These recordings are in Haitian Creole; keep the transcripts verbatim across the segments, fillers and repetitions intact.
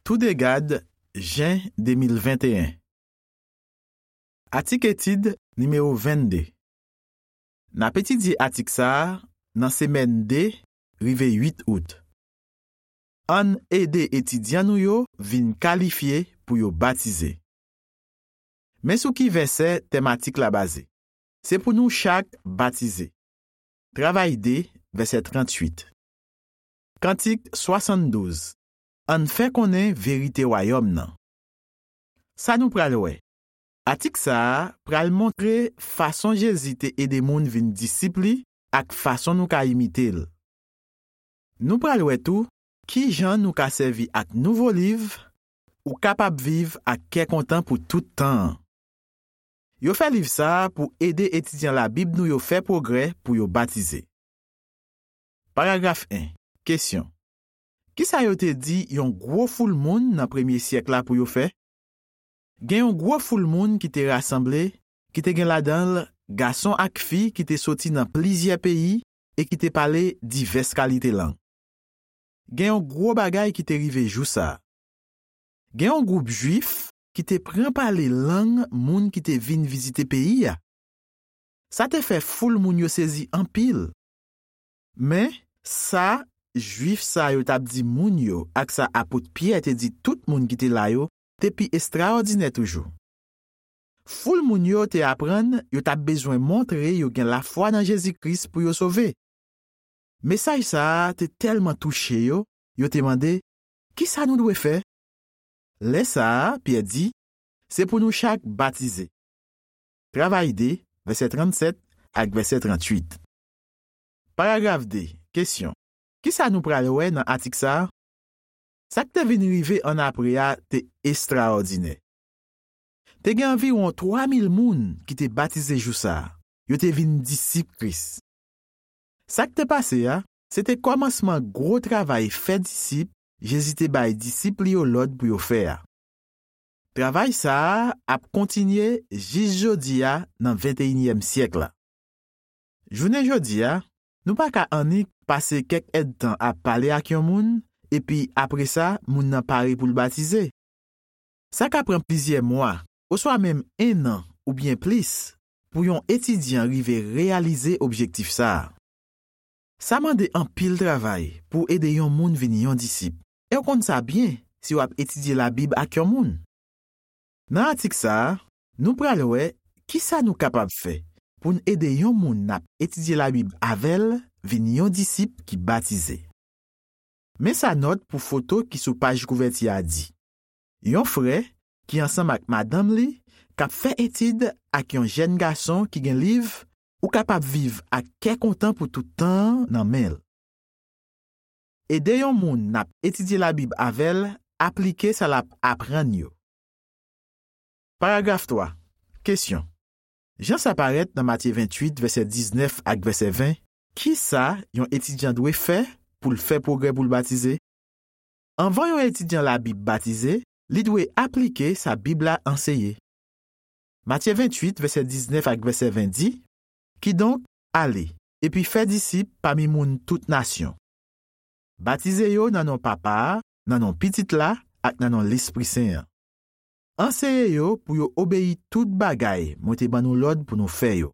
Toudegad, jen de mil venteyen. Atik etid nimewo vennde. N ap etidye atik sa a nan semèn de rive uit out. Ann ede etidyan nou yo vin kalifye pou yo batize. Men sou ki vèsè tèm atik la baze. Se pou nou chak batize. Travay de, vèsè tranntuit. Kantik swasanndouz. Ann fè konnen verite Wayòm nan. Sa nou pral wè. Atik sa a pral montre fason Jezi te ede moun vin disip li ak fason nou ka imite l. Nou pral wè tou ki jan nou ka sèvi ak nouvo liv Ou kapab viv ak kè kontan pou tout tan an. Yo fè liv sa a pou ede etidyan Labib nou yo fè pwogrè pou yo batize. Paragraf en. Kesyon. Ki sa yo te di yon gwo foul moun nan premye syèk la pou yo fè? Gen yon gwo foul moun ki te rasanble, ki te gen ladan l gason ak fi ki te soti nan plizyè peyi e ki te pale divès kalite lang. Gen yon gwo bagay ki te rive jou sa a. Gen yon gwoup Jwif ki te pran pale lang moun ki te vin vizite peyi a. Sa te fè foul moun yo sezi anpil. Men, sa Jwif sa yo t ap di moun yo ak sa apot Pyè te di tout moun ki te la yo te pi estraòdinè toujou. Foul moun yo te aprann yo t ap bezwen montre yo gen lafwa nan Jezi Kris pou yo sove. Mesaj sa a te tèlman touche yo, yo te mande, "Ki sa nou dwe fè?" Lè sa a, Pyè di, "Se pou nou chak batize." Travay de, vèsè trannsèt ak vèsè trantuit. Paragraf de, kesyon. Ki sa nou pral wè nan atik sa a? Sa k te vin rive annapre a te estraòdinè. Te gen anviwon twa mil moun ki te batize jou sa a. Yo te vin disip Kris. Sa k te pase a, se te kòmansman gwo travay fè disip Jezi te bay disip li yo lòd pou yo fè a. Travay sa a ap kontinye jis jodi a nan venteyinyèm syèk la. Jounen jodi a, nou pa ka annik pase kèk èdtan ap pale ak yon moun, epi apre sa, moun nan pare pou l batize. Sa ka pran plizyè mwa, oswa menm en an oubyen plis, pou yon etidyan rive reyalize objektif sa a. Sa mande anpil travay pou w ede yon moun vin yon disip, e w konn sa byen si w ap etidye Labib ak yon moun. Nan atik sa a, nou pral wè ki sa nou kapab fè pou n ede yon moun n ap etidye Labib avè l vin yon disip ki batize. Men sa nòt pou foto ki sou paj kouvèti a di. Yon frè ki ansanm ak madanm li k ap fè etid ak yon jèn gason ki gen liv Ou kapab viv ak kè kontan pou tout tan an nan men l. Ede yon moun n ap etidye Labib avè l aplike sa l ap aprann yo. Paragraf twa. Kesyon. Jan sa parèt nan Matye venntuit, vèsè diznèf ak vèsè ven, ki sa yon etidyan dwe fè pou l fè pwogrè pou l batize? Anvan yon etidyan Labib batize, li dwe aplike sa Bib la anseye. Matye venntuit, vèsè diznèf ak vèsè ven di, Kidonk, ale, epi fè disip pami moun tout nasyon. Batize yo nan non Papa a, nan non Pitit la, ak nan non Lespri Sen an. Anseye yo pou yo obeyi tout bagay mwen te ban nou lòd pou nou fè yo.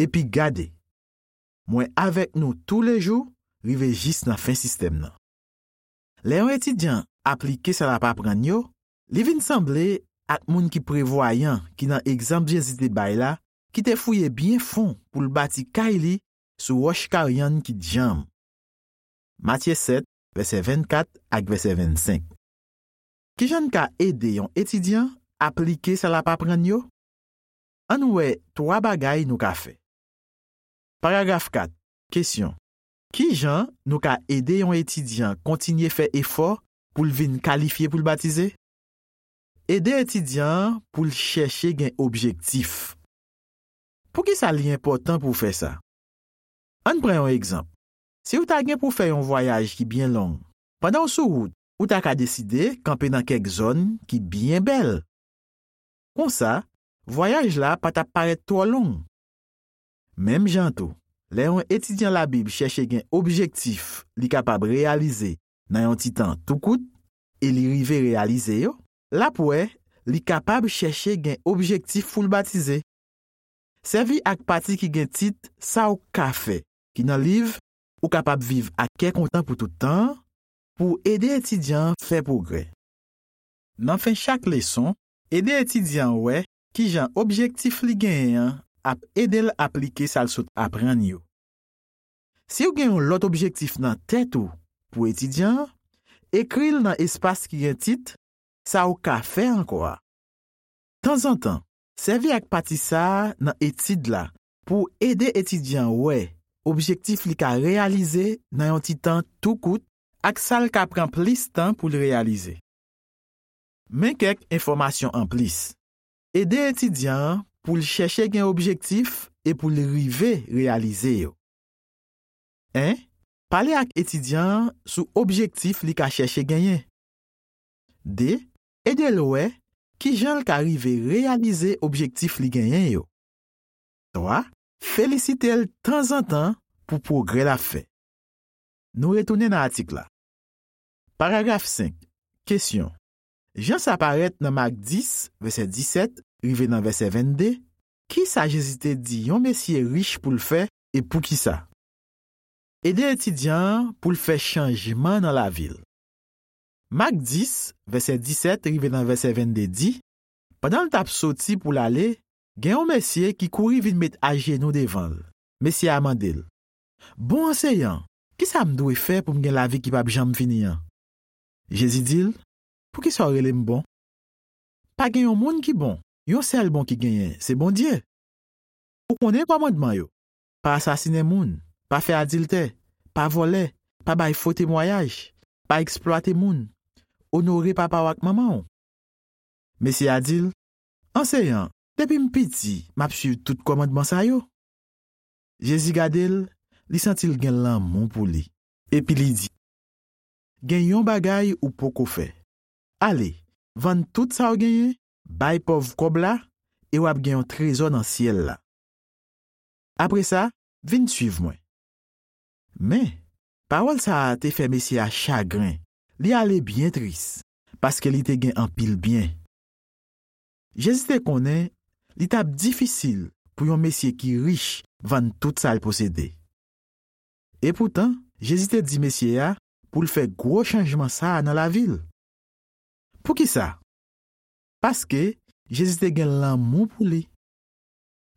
Epi gade, mwen avèk nou toulejou rive jis nan fen sistèm nan. Lè yon etidyan aplike sa l ap aprann yo, li vin sanble ak moun ki prevwayan ki nan egzanp Jezi te bay la, ki te fouye byen fon pou l bati kay li sou wòch karyann ki djanm. Matye sèt, vèsè vennkat ak vèsè vennsenk. Ki jan n ka ede yon etidyan aplike sa l ap aprann yo? Ann wè twa bagay nou ka fè. Paragraf kat. Kesyon. Ki jan nou ka ede yon etidyan kontinye fè efò pou l vin kalifye pou l batize? Ede etidyan an pou l chèche gen objektif. Poukisa li enpòtan pou w fè sa? Ann pran yon egzanp. Si w ta gen pou w fè yon vwayaj ki byen long, pandan w sou wout, ou ta ka deside kanpe nan kèk zòn ki byen bèl. Konsa, vwayaj la pa t ap parèt twò long. Menm jan tou, lè yon etidyan Labib chèche gen objektif li kapab reyalize nan yon ti tan tou kout, e li rive reyalize yo, l ap wè li kapab chèche gen objektif pou l batize. Sèvi ak pati ki gen tit Sa w ka fè, ki nan liv Ou kapab viv ak kè kontan pou tout tan an, pou w ede etidyan an fè pwogrè. Nan fen chak leson, ede etidyan an wè kijan objektif li genyen an ap ede l aplike sa l sot aprann yo. Si w gen yon lòt objektif nan tèt ou pou etidyan an, ekri l nan espas ki gen tit Sa w ka fè ankò a. Tanzantan, sèvi ak pati sa a nan etid la pou w ede etidyan an wè objektif li ka reyalize nan yon ti tan tou kout ak sa l ka pran plis tan pou l reyalize. Men kèk enfòmasyon anplis. Ede etidyan an pou l chèche gen objektif e pou l rive reyalize yo. En, pale ak etidyan an sou objektif li ka chèche genyen. De, ede l wè kijan l ka rive reyalize objektif li genyen yo. Twa, felisite l tanzantan pou pwogrè l ap fè. Nou retounen nan atik la. Paragraf senk. Kesyon. Jan sa parèt nan Mak dis, vèsè disèt, rive nan vèsè vennde, kisa Jezi te di yon mesye rich pou l fè e poukisa? Ede etidyan an pou l fè chanjman nan lavi l. Mak dis, vèsè disèt rive nan vèsè vennde di, pandan l t ap soti pou l ale, gen yon mesye ki kouri vin met ajenou devan l. Mesye a mande l, Bon anseyan, kisa m dwe fè pou m gen lavi ki p ap janm fini an? Jezi di l, Poukisa w rele m bon? Pa gen yon moun ki bon. Yon sèl bon ki genyen, se Bondye. Ou konnen kòmandman yo. Pa asasinen moun, pa fè adiltè, pa vòlè, pa bay fo temwayaj, pa eksplwate moun, onore papa w ak manman w. Mesye a di l, Anseyan, depi m piti, m ap suiv tout kòmandman sa yo. Jezi gade l, li santi l gen lanmou pou li. Epi li di, Gen yon bagay ou poko fè. Ale, vann tout sa w genyen, bay pòv kòb la, e w ap gen yon trezò nan syèl la. Apre sa, vin suiv mwen. Men, pawòl sa a te fè mesye a chagren. Li ale byen tris, paske li te gen anpil byen. Jezi te konnen li t ap difisil pou yon mesye ki rich vann tout sa l posede. Epoutan, Jezi te di mesye a pou l fè gwo chanjman sa a nan lavi l. Poukisa? Paske Jezi te gen lanmou pou li.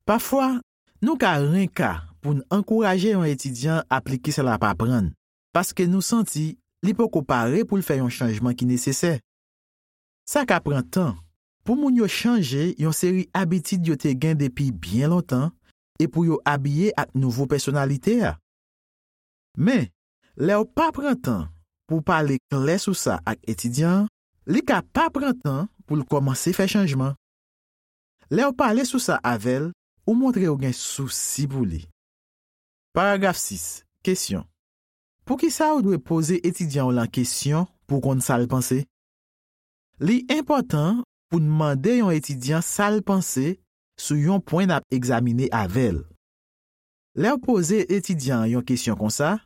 Pafwa, nou ka renka pou n ankouraje yon etidyan aplike sa l ap aprann, paske nou santi li poko pare pou l fè yon chanjman ki nesesè. Sa ka pran tan pou moun yo chanje yon seri abitid yo te gen depi byen lontan e pou yo abiye ak nouvo pèsonalite a. Men, lè w pa pran tan pou w pale klè sou sa ak etidyan an, li ka pa pran tan pou l kòmanse fè chanjman. Lè w pale sou sa avè l, ou montre w gen sousi pou li. Paragraf sis. Kesyon. Poukisa w dwe poze etidyan w lan kesyon pou w konn sa l panse? Li enpòtan pou n mande yon etidyan sa l panse sou yon pwen n ap egzamine avè l. Lè w poze etidyan an yon kesyon konsa,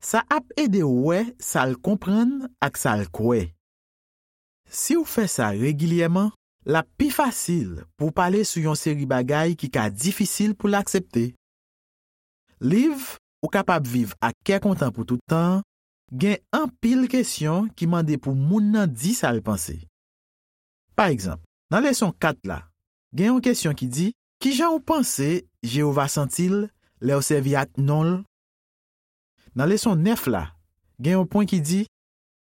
sa ap ede w wè sa l konprann ak sa l kwè. Si w fè sa regilyèman, l ap pi fasil pou w pale sou yon seri bagay ki ka difisil pou l aksepte. Liv Ou kapab viv ak kè kontan pou tout tan an gen anpil kesyon ki mande pou moun nan di sa l panse. Pa egzanp, nan leson kat la, gen yon kesyon ki di, Ki jan w panse Jewova santi l lè w sèvi ak non l? Nan leson nèf la, gen yon pwen ki di,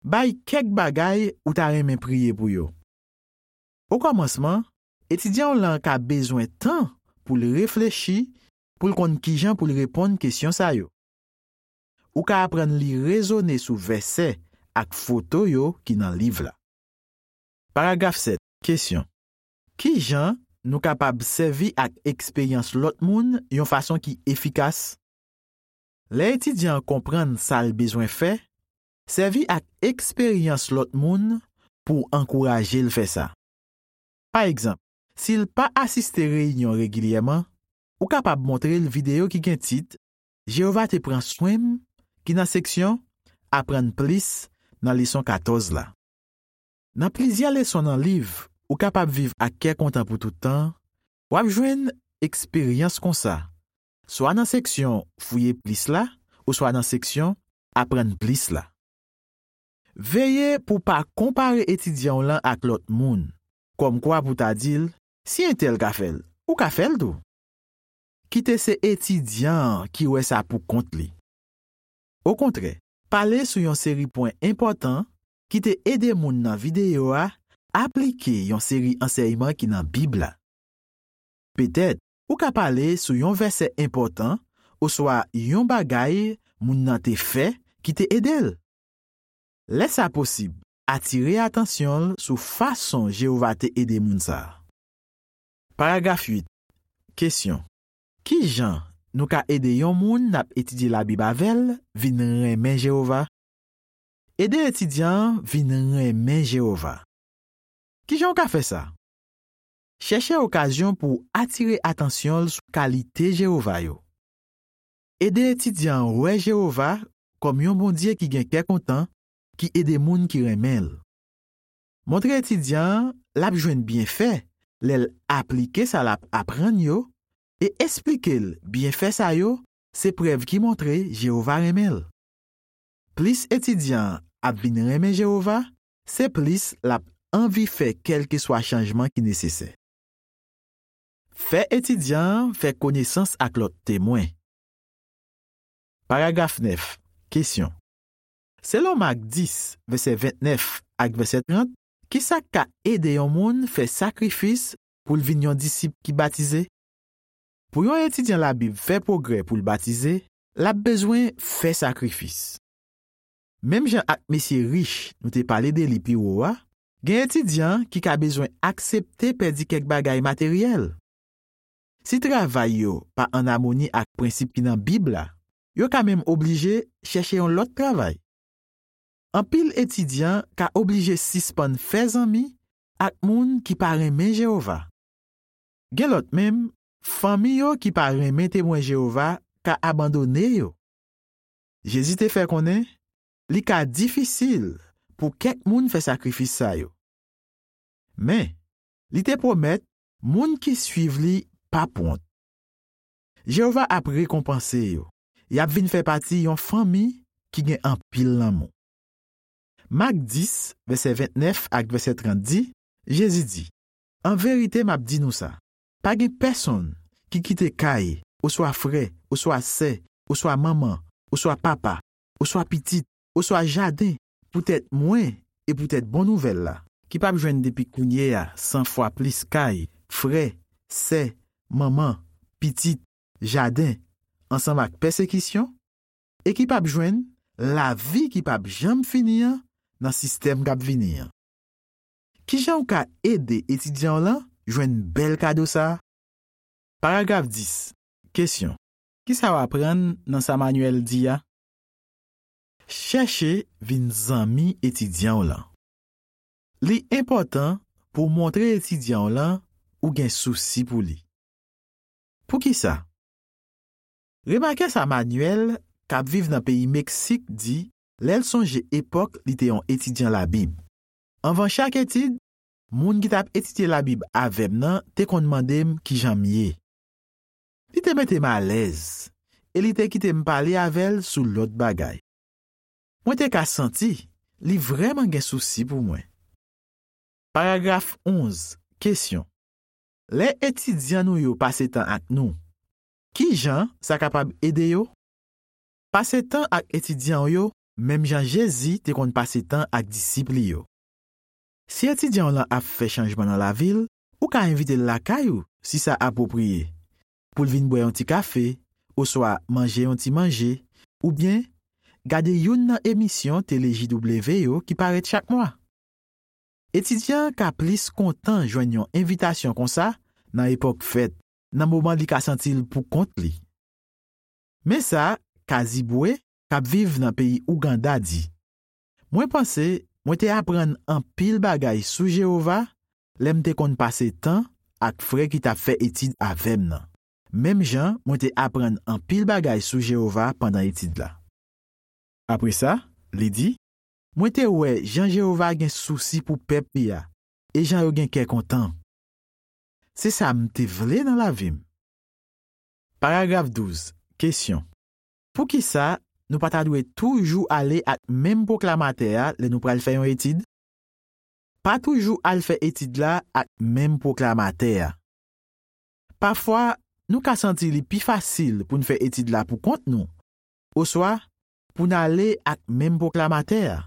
Bay kèk bagay ou ta renmen priye pou yo. Okòmansman, etidyan w lan ka bezwen tan pou l reflechi, pou l konn kijan pou l reponn kesyon sa yo. Ou ka aprann li rezone sou vèsè ak foto yo ki nan liv la. Paragraf sèt. Kesyon. Ki jan nou kapab sèvi ak eksperyans lòt moun yon fason ki efikas? Lè etidyan an konprann sa l bezwen fè, sèvi ak eksperyans lòt moun pou w ankouraje l fè sa. Pa egzanp, si l pa asiste reyinyon regilyèman, ou kapab montre l videyo ki gen tit Jewova te pran swen m, ki nan seksyon Aprann plis nan leson katòz la. Nan plizyè leson nan liv Ou kapab viv ak kè kontan pou tout tan, w ap jwenn eksperyans konsa, swa nan seksyon Fouye plis la, oswa nan seksyon Aprann plis la. Veye pou w pa konpare etidyan w lan ak lòt moun, kòmkwa pou w ta di l, "Si entèl ka fè l, ou ka fè l tou." Kite se etidyan an ki wè sa pou kont li. Okontrè, pale sou yon seri pwen enpòtan ki te ede moun nan videyo a aplike yon seri ansèyman ki nan Bib la. Petèt, ou ka pale sou yon vèsè enpòtan oswa yon bagay moun nan te fè ki te ede l. Lè sa posib, atire atansyon l sou fason Jewova te ede moun sa a. Paragraf uit. Kesyon. Ki jan nou ka ede yon moun n ap etidye Labib avè l vin renmen Jewova? Ede etidyan an vin renmen Jewova. Ki jan w ka fè sa? Chèche okazyon pou w atire atansyon l sou kalite Jewova yo. Ede etidyan an wè Jewova kòm yon Bondye ki gen kè kontan, ki ede moun ki renmen l. Montre etidyan an l ap jwenn byenfè lè l aplike sa l ap aprann yo e esplike l byenfè sa yo se prèv ki montre Jewova renmen l. Plis etidyan an ap vin renmen Jewova, se plis l ap anvi fè kèlkeswa chanjman ki nesesè. Fè etidyan an fè konesans ak lòt Temwen. Paragraf nèf. Kesyon. Selon Mak dis, vèsè vennèf ak vèsè trant, ki sa k ka ede yon moun fè sakrifis pou l vin yon disip ki batize? Pou yon etidyan Labib fè pwogrè pou l batize, l ap bezwen fè sakrifis. Menm jan ak mesye rich nou te pale de li pi wo a, gen etidyan ki ka bezwen aksepte pèdi kèk bagay materyèl. Si travay yo pa ann amoni ak prensip ki nan Bib la, yo ka menm oblije chèche yon lòt travay. Anpil etidyan ka oblije sispann fè zanmi ak moun ki pa renmen Jewova. Gen lòt menm, fanmi yo ki pa renmen Temwen Jewova ka abandone yo. Jezi te fè konnen li ka difisil pou kèk moun fè sakrifis sa yo. Men, li te pwomèt moun ki suiv li p ap wont. Jewova ap rekonpanse yo. Y ap vin fè pati yon fanmi ki gen anpil lanmou. Mak dis, vèsè vennèf ak vèsè trant di, Jezi di, "An verite, m ap di nou sa, pa gen pèsonn ki kite kay, oswa frè, oswa sè, oswa manman, oswa papa, oswa pitit, oswa jaden, poutèt mwen e poutèt bon nouvèl la, ki p ap jwenn depi kounye a san fwa plis kay, frè, sè, manman, pitit, jaden, ansanm ak pèsekisyon, e ki p ap jwenn lavi ki p ap janm fini an nan sistèm k ap vini an." Ki jan w ka ede etidyan w lan jwenn bèl kado sa a? Paragraf dis. Kesyon. Ki sa w aprann nan sa Manyèl di a? Chèche vin zanmi etidyan w lan. Li enpòtan pou w montre etidyan w lan ou gen sousi pou li. Poukisa? Remake sa Manyèl, k ap viv nan peyi Meksik, di lè l sonje epòk li te yon etidyan Labib. Anvan chak etid, moun ki t ap etidye Labib avè m nan te konn mande m ki jan m ye. Li te mete m alèz e li te kite m pale avè l sou lòt bagay. Mwen te ka santi li vrèman gen sousi pou mwen. Paragraf onz. Kesyon. Lè etidyan nou yo pase tan ak nou, ki jan sa kapab ede yo? Pase tan ak etidyan w yo menm jan Jezi te konn pase tan ak disip li yo. Si etidyan w lan ap fè chanjman nan lavi l, ou ka envite l lakay ou si sa apwopriye, pou l vin bwè yon ti kafe, oswa manje yon ti manje, oubyen gade youn nan emisyon tele J W yo ki parèt chak mwa. Etidyan an ka plis kontan jwenn yon envitasyon konsa nan epòk fèt, nan moman li ka santi l pou kont li. Men sa Kazibwe, k ap viv nan peyi Ouganda, di, "Mwen panse mwen te aprann anpil bagay sou Jewova lè m te konn pase tan ak frè ki t ap fè etid avè m nan, menm jan mwen te aprann anpil bagay sou Jewova pandan etid la." Apre sa, li di, mwen te wè jan Jewova gen sousi pou pèp li a e jan yo gen kè kontan. Se sa m te vle nan lavi m. Paragraf douz. Kesyon. Poukisa nou pa ta dwe toujou ale ak menm pwoklamatè a lè nou pral fè yon etid? Pa toujou al fè etid la ak menm pwoklamatè a. Pafwa, nou ka santi li pi fasil pou n fè etid la pou kont nou, oswa pou n ale ak menm pwoklamatè a.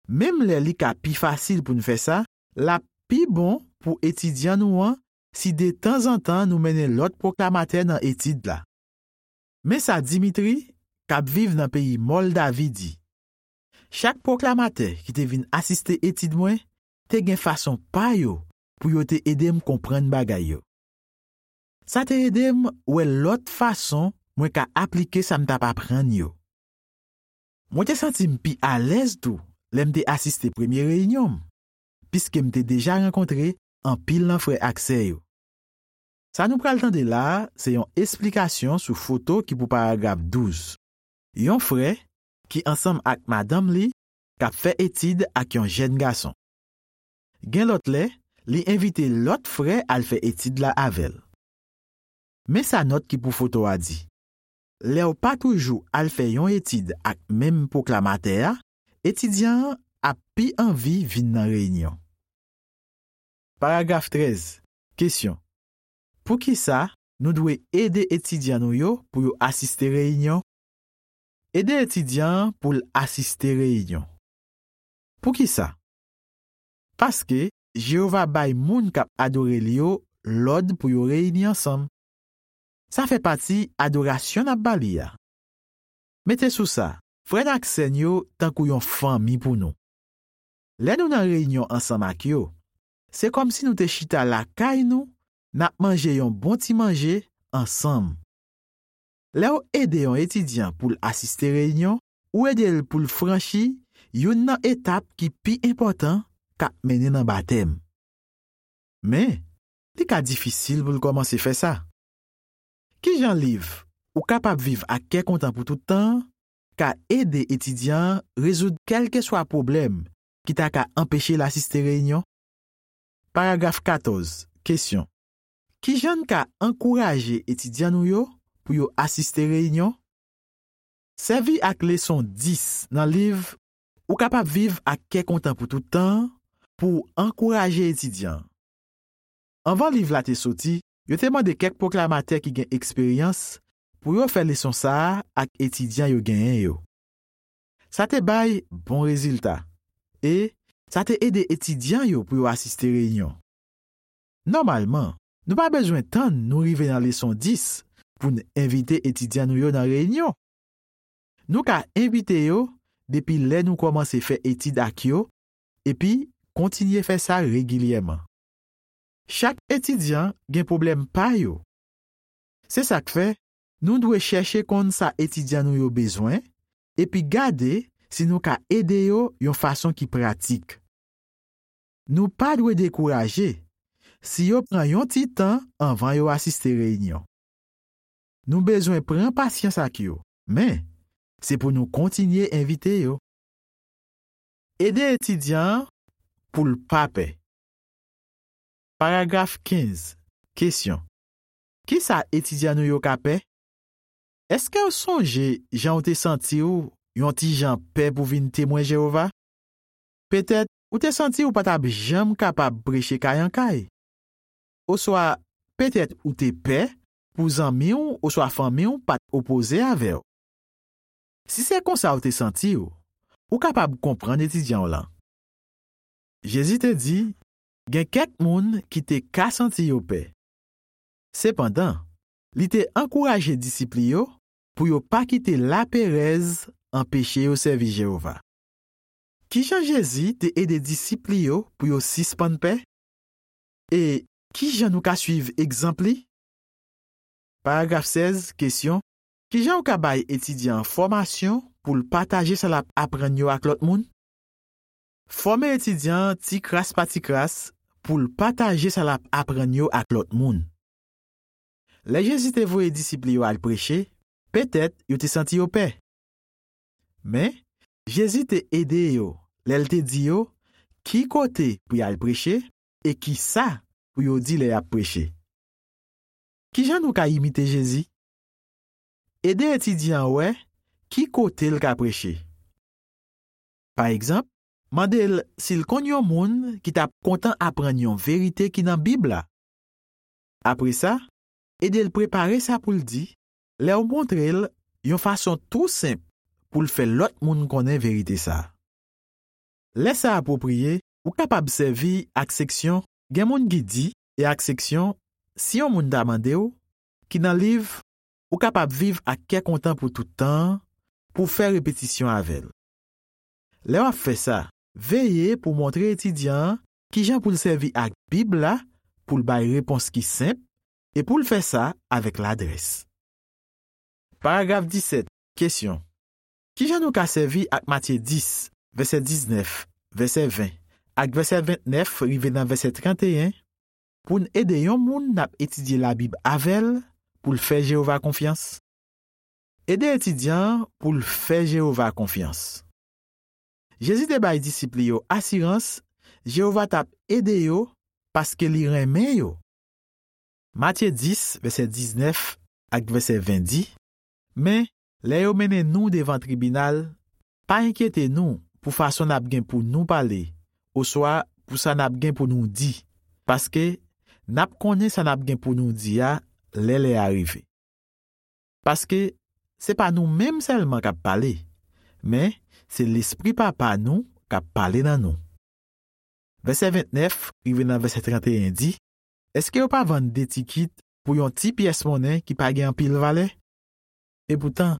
Menm lè li ka pi fasil pou n fè sa, l ap pi bon pou etidyan nou an si detanzantan nou mennen lòt pwoklamatè nan etid la. Men sa Dimitri, k ap viv nan peyi Mòldavi, di: Chak pwoklamatè ki te vin asiste etid mwen te gen fason pa yo pou yo te ede m konprann bagay yo. Sa te ede m wè lòt fason mwen ka aplike sa m t ap aprann yo. Mwen te santi m pi alèz tou lè m te asiste premye reyinyon m, piske m te deja rankontre anpil nan frè ak sè yo. Sa nou pral tande la a se yon esplikasyon sou foto ki pou paragraf douz. Yon frè ki ansanm ak madanm li k ap fè etid ak yon jèn gason. Gen lòt lè, li envite lòt frè al fè etid la avè l. Men sa nòt ki pou foto a di: Lè w pa toujou al fè yon etid ak menm pwoklamatè a, etidyan an ap pi anvi vin nan reyinyon. Paragraf trèz. Kesyon. Poukisa nou dwe ede etidyan nou yo pou yo asiste reyinyon? Ede etidyan an pou l asiste reyinyon. Poukisa? Paske Jewova bay moun k ap adore l yo lòd pou yo reyini ansanm. Sa fè pati adorasyon n ap ba li a. Mete sou sa, frè n ak sè n yo tankou yon fanmi pou nou. Lè nou nan reyinyon ansanm ak yo, se kòmsi nou te chita lakay nou, n ap manje yon bon ti manje ansanm. Lè w ede yon etidyan pou l asiste reyinyon, ou ede l pou l franchi youn nan etap ki pi enpòtan k ap mennen nan batèm. Men, li ka difisil pou l kòmanse fè sa. Ki jan liv Ou kapab viv ak kè kontan pou tout tan an ka ede etidyan an rezoud kèlkeswa pwoblèm ki ta ka anpeche l asiste reyinyon? Paragraf katòz. Kesyon. Ki jan n ka ankouraje etidyan nou yo pou yo asiste reyinyon? Sèvi ak leson dis nan liv Ou kapab viv ak kè kontan pou tout tan an pou w ankouraje etidyan an. Anvan liv la te soti, yo te mande kèk pwoklamatè ki gen eksperyans pou yo fè leson sa a ak etidyan yo genyen yo. Sa te bay bon rezilta, e sa te ede etidyan yo pou yo asiste reyinyon. Nòmalman, nou pa bezwen tann nou rive nan leson dis pou n envite etidyan nou yo nan reyinyon. Nou ka envite yo depi lè nou kòmanse fè etid ak yo, epi kontinye fè sa regilyèman. Chak etidyan gen pwoblèm pa yo. Se sa k fè, nou dwe chèche konn sa etidyan nou yo bezwen, epi gade si nou ka ede yo yon fason ki pratik. Nou pa dwe dekouraje si yo pran yon ti tan anvan yo asiste reyinyon. Nou bezwen pran pasyans ak yo, men se pou nou kontinye envite yo. Ede etidyan an pou l pa pè. Paragraf kenz. Kesyon. Ki sa etidyan nou yo ka pè? Èske w sonje jan w te santi w yon ti jan pè pou vin Temwen Jewova? Petèt ou te santi w pa t ap janm kapab preche kay an kay. Oswa petèt ou te pè pou zanmi w oswa fanmi w pa t opoze avè w. Si se konsa w te santi w, ou kapab konprann etidyan w lan. Jezi te di, gen kèk moun ki te ka santi yo pè. Sepandan, li te ankouraje disip li yo pou yo pa kite laperèz anpeche yo sèvi Jewova. Ki jan Jezi te ede disip li yo pou yo sispann pè? E ki jan nou ka suiv egzanp li? Paragraf sèz, kesyon. Ki jan w ka bay etidyan an fòmasyon pou l pataje sa l ap aprann yo ak lòt moun? Fòme etidyan an ti kras pa ti kras pou l pataje sa l ap aprann yo ak lòt moun. Lè Jezi te voye disip li yo al preche, petèt yo te santi yo pè. Men, Jezi te ede yo lè l te di yo ki kote pou y al preche e ki sa pou yo di lè y ap preche. Ki jan nou ka imite Jezi? Ede etidyan an wè ki kote l ka preche. Pa egzanp, mande l si l konn yon moun ki t ap kontan aprann yon verite ki nan Bib la. Apre sa, ede l prepare sa pou l di lè w montre l yon fason tou senp pou l fè lòt moun konnen verite sa a. Lè sa apwopriye, ou kapab sèvi ak seksyon Gen moun ki di e ak seksyon Si yon moun ta mande w, ki nan liv Ou kapab viv ak kè kontan pou tout tan an, pou w fè repetisyon avè l. Lè w ap fè sa, veye pou w montre etidyan an ki jan pou l sèvi ak Bib la pou l bay repons ki senp e pou l fè sa avèk ladrès. Paragraf disèt, kesyon. Ki jan nou ka sèvi ak Matye dis, vèsè diznèf, vèsè ven, ak vèsè ventnèf rive nan vèsè tranteyen pou n ede yon moun n ap etidye Labib avè l pou l fè Jewova konfyans? Ede etidyan an pou l fè Jewova konfyans. Jezi te bay disip li yo asirans Jewova t ap ede yo paske li renmen yo. Matye dis, vèsè diznèf ak vèsè ven di, Men, lè yo mennen nou devan tribinal, pa enkyete nou pou fason n ap gen pou nou pale, oswa pou sa n ap gen pou nou di, paske n ap konnen sa n ap gen pou nou di a lè lè a rive. Paske se pa nou menm sèlman k ap pale, men se Lespri Papa nou k ap pale nan nou. Vèsè ventnèf rive nan vèsè tranteyen di, Èske yo pa vann de tikit pou yon ti pyès monnen ki pa gen anpil valè? Epoutan,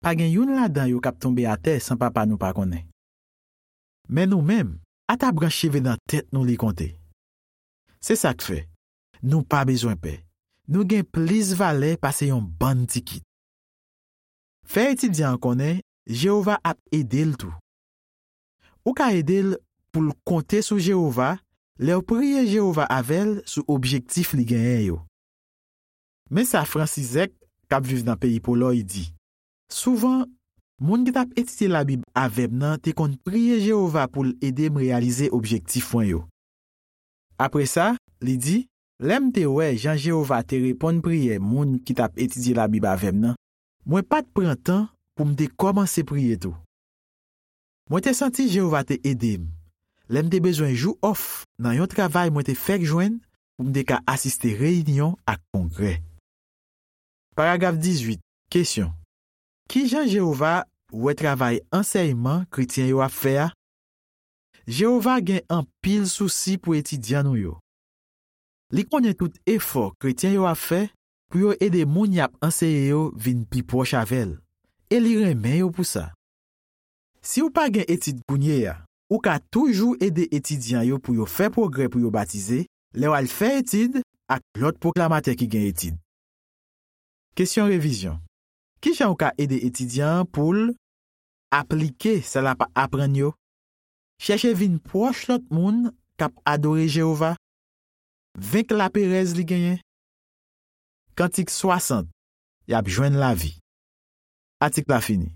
pa gen youn ladan yo k ap tonbe atè san Papa nou pa konnen. Men nou menm, ata branch cheve nan tèt nou li konte. Se sa k fè, nou pa bezwen pè. Nou gen plis valè pase yon bann tikit. Fè etidyan an konnen Jewova ap ede l tou. Ou ka ede l pou l konte sou Jewova lè w priye Jewova avè l sou objektif li genyen yo. Men sa Fransizèk, k ap viv nan peyi Polòy, di, Souvan, moun ki t ap etidye Labib avè m nan te konn priye Jewova pou l ede m reyalize objektif mwen yo. Apre sa, li di, Lè m te wè jan Jewova te reponn priyè moun ki t ap etidye Labib avè m nan, mwen pa t pran tan pou m te kòmanse priye tou. Mwen te santi Jewova te ede m lè m te bezwen jou òf nan yon travay mwen te fèk jwenn pou m te ka asiste reyinyon ak kongrè. Paragraf dizuit, kesyon. Ki jan Jewova wè travay ansèyman kretyen yo ap fè a? Jewova gen anpil sousi pou etidyan nou yo. Li konnen tout efò kretyen yo ap fè pou yo ede moun y ap anseye yo vin pi pwòch avè l, e li renmen yo pou sa. Si w pa gen etid kounye a, ou ka toujou ede etidyan yo pou yo fè pwogrè pou yo batize lè w al fè etid ak lòt pwoklamatè ki gen etid. Kesyon revizyon. Ki jan w ka ede etidyan an pou l aplike sa l ap aprann yo? Chèche vin pwòch lòt moun k ap adore Jewova. Venk laperèz li genyen. Kantik swasant, Y ap jwenn lavi. Atik la fini.